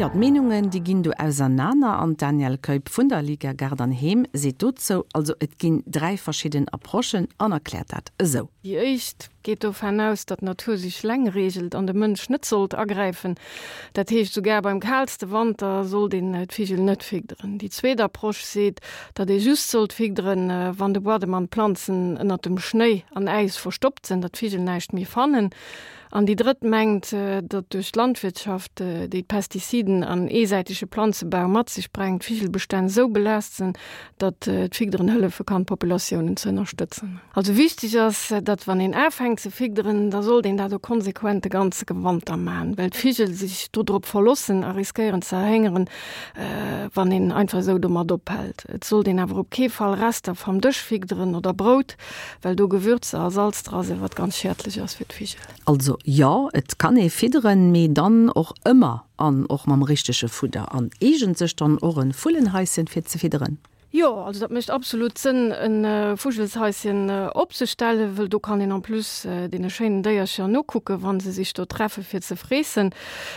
Jo, d'Meenungen, déi ginn do ausernaner an d'Danièle Keup vun der Liga Gaart an Heem seet dozou, also et ginn 3 verschidden Approchen an erkläert dat esou. Déi éischt geet dovun aus, datt d'Natur sech leng reegelt an de Mënsch net sollt agräifen. Dat heescht, sougar beim kaalste Wanter sollt een d'Vigel net figderen. Déi zweet Approche seet, datt ee just sollt figderen, wann de Buadem an d'Planzen ënnert dem Schnéi an Äis verstoppt sinn, datt d'Vigel näischt méi fannen. An déi drëtt mengt, datt duerch d'Landwirtschaft, déi d'Pestiziden an eesäitege Planzebau mat sech brengt, d'Vigelbestänn esou belaasst sinn, datt d'Figderen hëllefe kann, d'Populatiounen ze ënnerstëtzen. Also wichteg ass, datt wann een afänkt ze figderen, da sollt een dat och konsequent de ganze Wanter maachen, well d'Vigel sech dodrop verlossen a riskéieren ze erhéngeren, wann een einfach esou domat ophält. Et sollt een awer op kee Fall Rester vam Dësch figderen oder Brout, Well do Gewürzer a Salz dra sinn, wat ganz schädlech ass fir d'Vigel. Also jo, et kann ee fidderen, mee dann och ëmmer an och mam richtege Fudder. An eegent sech dann och e Vullenhaischen fir ze fidderen? Jo, also dat mécht absolut Sënn e Vugelshaischen opzestellen, wëll do kann een en plus deene schéinen Déiercher nokucken, wa se sech do treffe fir ze freessen.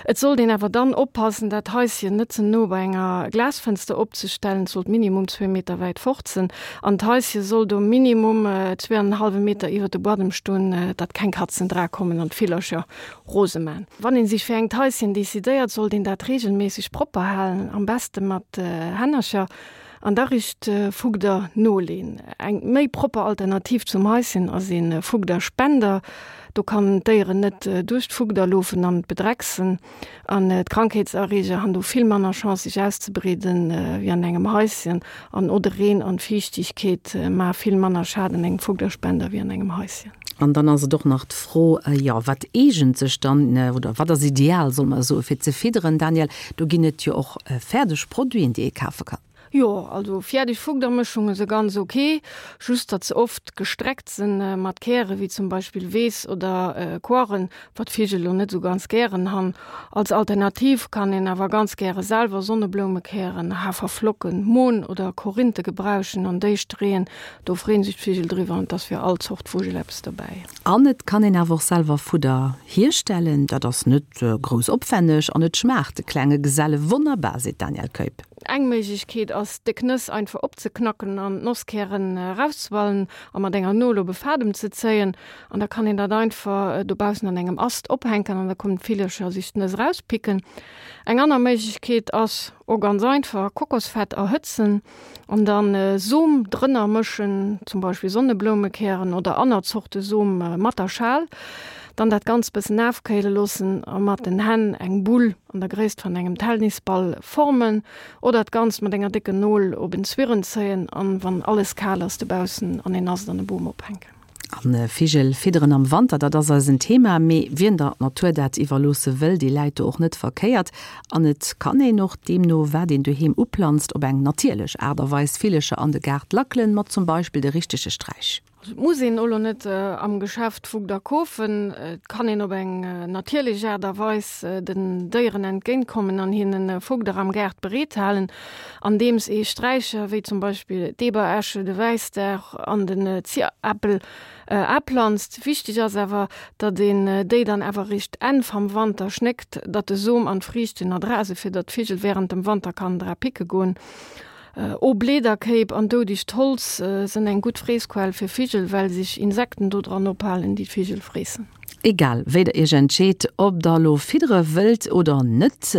Et sollt een awer dann oppassen, dat Haischen net ze no bei enger Glasfënster opzestellen, et sollt minimum zwee Meter wäit fort sinn. An d'Haische soll do minimum zwee an en hallwe Meter iwwer de Buadem stoen, datt keng Katzen dra kommen an d'Villercher rose man. Wann een sech fir engt Haischen decidéiert, sollt een dat regelméisseg propper halen, am beste mat Hännercher an da richt Fugder noleen. Eng méi propper Alternativ zum Haischen ass ee Fugderspender. Do kann d'Déieren net duerch d'Fugder loofen an et bedrecksen. An d'Krankheetserreeger han do vill manner Chance sech auszebreeden wéi an engem Haischen. An o de Reen an d'Fiichtigkeet maa vill manner Schad an engem Fugderspender wéi an engem Haischen. An dann ass et och nach d'Fro, jo, wat eegent sech dann, oder wat ass ideal, solle mer soen, fir ze fidderen? Danièle, do ginn et jo och fäerdeg Produiten, déi ee kafe kann. Jo, also fiärdeg Fugdermëschunge se ganz ok, just datt se oft gestreckt sen mat Käre wéi zum Beispill Weess oder Koarren, wat Vigel lo net sou ganz gären han. Als Alternativ kann een awer ganz gäre selwer Sonnebloumekären, Haferflocken, Mohn oder Korinthe gebrauchen an déi streeën, do freen sech d'Vigel driwwer an 't ass fir all Zort Vugel eppes dobäi. An et kann een awer och selwer Fudder hierstellen, dat ass net grouss opwänneg an et schmaacht de klenge Geselle wonnerbar, seet d'Danièle Keup. Eng Méiglechkeet ass, déck Nëss einfach opzeknacken an d'Nosskären erauszeballen a mat enger Nol op e Fadem ze zéien. An da kann een dat einfach dobaussen an engem Ast ophänken an da kommen d'Villercher sech d'Nëss erauspicken. Eng aner Méiglechkeet ass, och ganz einfach, Kokosfett erhëtzen an dann Som drënner mëschen, zum Beispill Sonnebloumekären oder anner Zorte Som mat der Schal. Dann dat Ganzt bëssen afkéile loossen a mat den Hänn eng Bull an der Gréisst van engem Telnisball formen oder d'Ganzt mat enger décken Nol op en Zwirren zéien an wann alles kal ass dobaussen an een Ast an e Boom ophänken. An Vigel fidderen am Wanter, dat ass eisen Thema. Mee wien der Natur dat iwwerloosse wëll, dee läit do och net verkéiert. An et kann een och, deemno wat een doheem uplanzt, op eng natierlech Aart a Weis Villecher an de Gaart lackelen, mat zum Beispill de richtege Sträich. Also et muss een elo net am Geschäft Fugder kofen. Et kann een op eng natierlech Aart a Weis den Déieren entgéint kommen an hinnen Fugder am Gaart bereet halen, andeems ee Sträicher wéi zum Beispill d'Eberesche, de Wäissdag an den Zierappel aplanzt. Wichteg ass awer, datt een déi dann awer eréischt Enn vam Wanter schnéckt, datt de Som an d'Friichten erdra sinn, fir datt d'Vigel wärend dem Wanter kann dra picke goen. O Bleederkéip an doudegt Holz sënn eng gutt Freessquell fir Vigel, well sech Insekten do dran ophalen, déi d'Vigel freessen. Egal wéi der iech entscheet, ob der elo fiddere wëllt oder net.